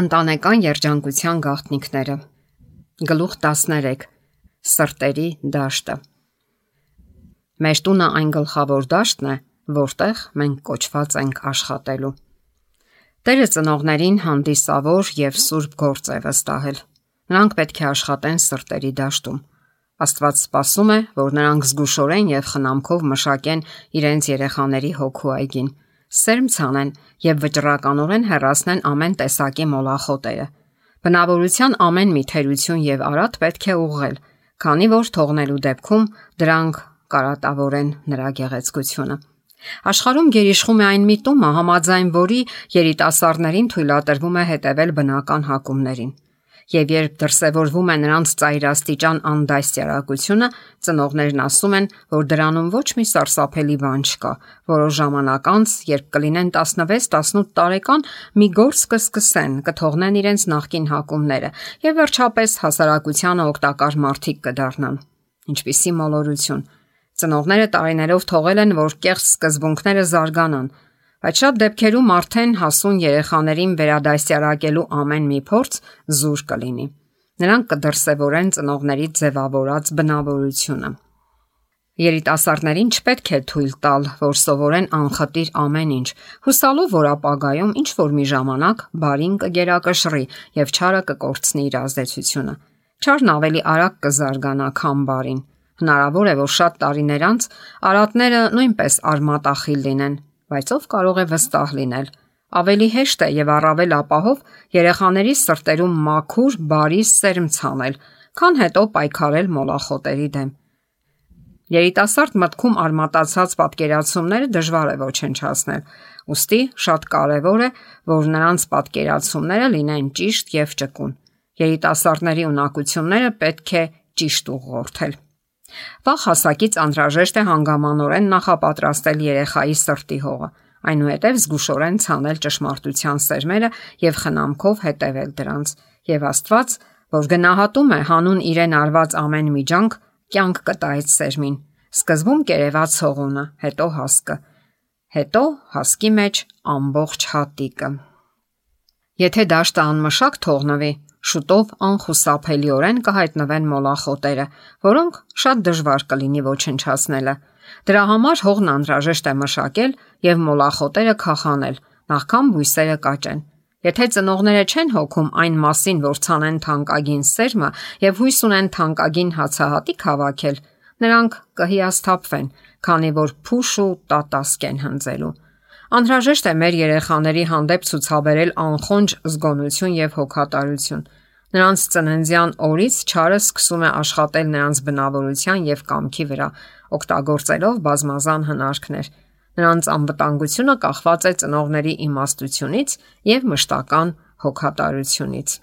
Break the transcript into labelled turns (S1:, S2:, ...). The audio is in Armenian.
S1: Ընտանեկան երջանկության գաղտնիքները։ Գլուխ 13. Սրտերի դաշտը։ Մեր տունը այն գլխավոր դաշտն է, որտեղ մենք կոչված ենք աշխատելու։ Տերը ծնողներին հանդիսավոր եւ սուրբ գործ է վստահել։ Նրանք պետք է աշխատեն սրտերի դաշտում։ Աստված սպասում է, որ նրանք զգուշորեն եւ խնամքով մշակեն իրենց երեխաների հոգու այգին, սերմ ցանեն եւ վճռականորեն հեռացնեն ամեն տեսակի մոլախոտերը։ Բնավորության ամեն մի թերություն եւ արատ պետք է ուղղել, քանի որ թողնելու դեպքում դրանք կարատավորեն նրա գեղեցկությունը։ Աշխարհում գերիշխում է այն միտումը, համաձայն որի երիտասարդներին թույլատրվում է հետևել բնական հակումներին։ Եվ երբ դրսևորվում է նրանց ծայրաստիճան անդաստիարակությունը, ծնողներն ասում են, որ դրանում ոչ մի սարսափելի բան չկա։ Որոշ ժամանակ անց, երբ կլինեն 16-18 տարեկան, մի գործ կսկսեն, կթողնեն իրենց նախկին հակումները եւ վերջապես հասարակությանը օգտակար մարդիկ կդառնան։ Ինչպիսի մոլորություն։ Ծնողները տարիներով թողել են, որ կեղծ սկզբունքները զարգանան, բայց շատ դեպքերում արդեն հասուն երեխաներին վերադասյարակելու ամեն մի փորձ զուր կլինի։ Նրանք կդրսևորեն ծնողների ձևավորած բնավորությունը։ Երիտասարդներին չպետք է թույլ տալ, որ սովորեն անխտիր ամեն ինչ, հուսալով, որ ապագայում ինչ որ մի ժամանակ բարին կգերակշռի եւ չարը կկորցնի իր ազդեցությունը։ Չարն ավելի արագ կզարգանա, քան բարին։ Հնարավոր է, որ շատ տարիներ անց արատները նույնպես արմատախիլ լինեն, բայց ով կարող է վստահ լինել։ Ավելի հեշտ է եւ առավել ապահով երեխաների սրտերում մաքուր, բարի սերմ ցանել, քան հետո պայքարել մոլախոտերի դեմ։ Երիտասարդ մտքում արմատացած պատկերացումները դժվար է ոչնչացնել, ուստի շատ կարևոր է, որ նրանց պատկերացումները լինեն ճիշտ եւ ճկուն։ Երիտասարդների ունակությունները պետք է ճիշտ ուղղորդել։ Վաղ հասակից անհրաժեշտ է հանգամանորեն նախապատրաստել երեխայի սրտի հողը, այնուհետև զգուշորեն ցանել ճշմարտության սերմերը եւ խնամքով հետևել դրանց։ Եվ Աստված, որ գնահատում է հանուն իրեն արված ամեն միջանք, կյանք կտա այդ սերմին։ Սկզբում կերևաց հողունը, հետո հասկը, հետո հասկի մեջ ամբողջ հատիկը։ Եթե դաշտը անմշակ թողնվի, շուտով անխուսափելիորեն կհայտնվեն մոլախոտերը, որոնք շատ դժվար կլինի ոչնչացնելը։ Դրա համար հողն անհրաժեշտ է մշակել եւ մոլախոտերը քախանել, նախքան բույսերը կաճեն։ Եթե ծնողները չեն հոգում այն մասին, որ ցանեն թանկագին սերմը եւ հույս ունեն թանկագին հացահատիկ հավաքել, նրանք կհիասթափվեն, քանի որ փուշ ու տատասկ են հնձելու։ Անհրաժեշտ է մեր երեխաների հանդեպ ցուցաբերել անխոնջ զգոնություն եւ հոգատարություն։ Նրանց ծննդյան օրից չարը սկսում է աշխատել նրանց բնավորության եւ կամքի վրա, օգտագործելով բազմազան հնարքներ։ Նրանց անվտանգությունը կախված է ծնողների իմաստությունից եւ մշտական հոգատարությունից։